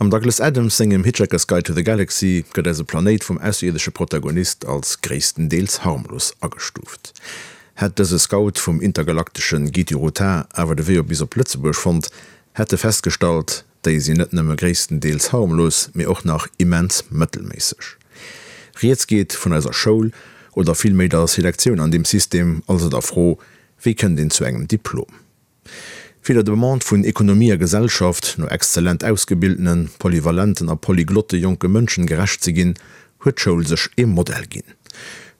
Am Douglas Adams sengem Hitchhiker's Guide to the Galaxy gëtt eise Planéit vum ausserierdesche Protagonist als gréisstendeels harmlos agestuuft. Hätt dëse Scout vum intergalaktesche Gitiruta awer de Wee op bis op Lëtzebuerg fonnt, hätt e festgestallt, déi sinn net nëmme gréisstendeels harmlos, mee och nach immens mëttelméisseg. Rieds geet vun eiser Schoul, oder villméi der Selektioun an deem System, also der Fro, wéi kënnt een zu engem Diplom? Fir der Demande vun Ekonomie a Gesellschaft no exzellent ausgebildenen, polyvalenten a polyglotte jonke Mënschen gerecht ze ginn, huet d'Schoul sech ee Modell ginn.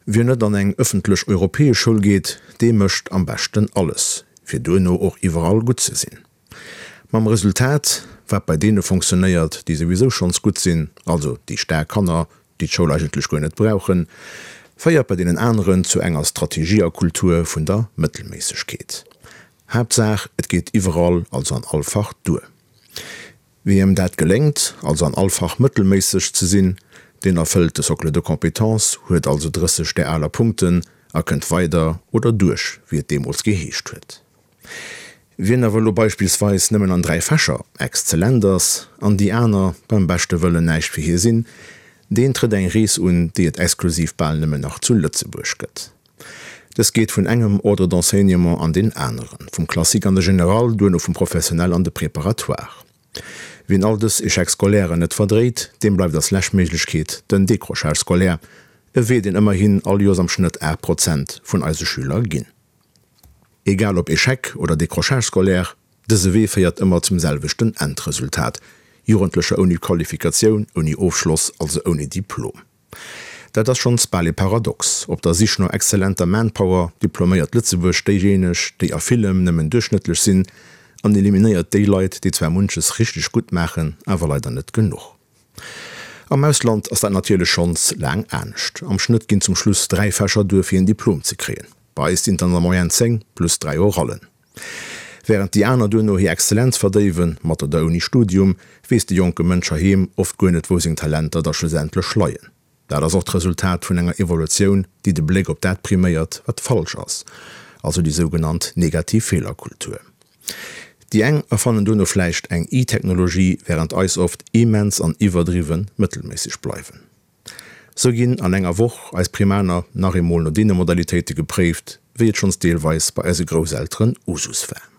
Wien net an eng ëffentlech europäesch Schoul geet, dee mécht am beschten alles, fir duerno och iwwerall gutt ze sinn. Mam Resultat, wat bei deene fonctionnéiert, déi souwisou schonns gutt sinn, also déi staark Kanner, déi d'Schoul eigentlech guer net brauchen, féiert bei deenen aneren zu enger Strategie a Kultur vun der Mëttelméissegkeet. Haaptsaach et geet iwwerall, also an all Fach duer. Wiem dat geléngt, also an all Fach mëttelméisseg ze sinn, deen erfëllt de Socle de compétences, huet also 30 där aler Punkten a kënnt weider oder duerch, wéi et deemools geheescht huet. Wien awer elo beispillsweis nëmmen an 3 Fächer exzellent ass an déi aner beim beschte Wëllen näischt fir hie sinn, deen trëtt eng Rees un, déi et exklusiv bal nëmmen nach zu Lëtzebuerg gëtt. Dës geet vun engem Ordre d'enseignement an deen aneren, vum Classique an de Général, duerno vum Professionnel an de Préparatoire. Wien all dës Échecs scolairen net verdréit, deem bleift als lescht Méiglechkeet den Décrochage scolaire, e Wee, deen ëmmerhin all Joers am Schnëtt 8 Prozent vun eise Schüler ginn. Egal ob Échec oder Décrochage scolaire, dëse Wee féiert ëmmer zum selwechten Endresultat, Jugendlecher ouni Qualifikatioun, ouni Ofschloss, also ouni Diplom. Dat ass schonns bal ee Paradox, Op der Sich no exzellenter Manpower diploméiert Lëtzebuerg déijéineg, déi a villem nëmmen duerchschnëttlech sinn, an eliminéiert déi Leit, déi zwar munches richteg gutt maachen, awer leider net genuch. Am Ausland ass dat natierlech schonns laang anescht. Am Schnëtt ginn zum Schluss 3 Fächer duer fir een Diplom ze kréien. Bei eis sinn et an der Moyenne 10 plus 3 Orallen. Wärend déi aner duerno hir Exzellenz verdéiwen, mat oder ouni Studium, weess de jonke Mënsch heiheem oft guer net wou seng Talenter da schlussendlech leien. Dat ass och d'Resultat vun enger Evolutioun, déi de Bléck op dat priméiert, wat falsch ass, also déi sougenannt negativ Feelerkultur. Déi eng erfannen duerno vläicht eng I-Technologie, wärend eis oft immens an iwwerdriwwe mëttelméisseg bleiwen. Sou ginn an enger Woch eis Primaner nach eemol no deene Modalitéite gepréift, wéi et schonns deelweis bei eise Grousselteren Usus war.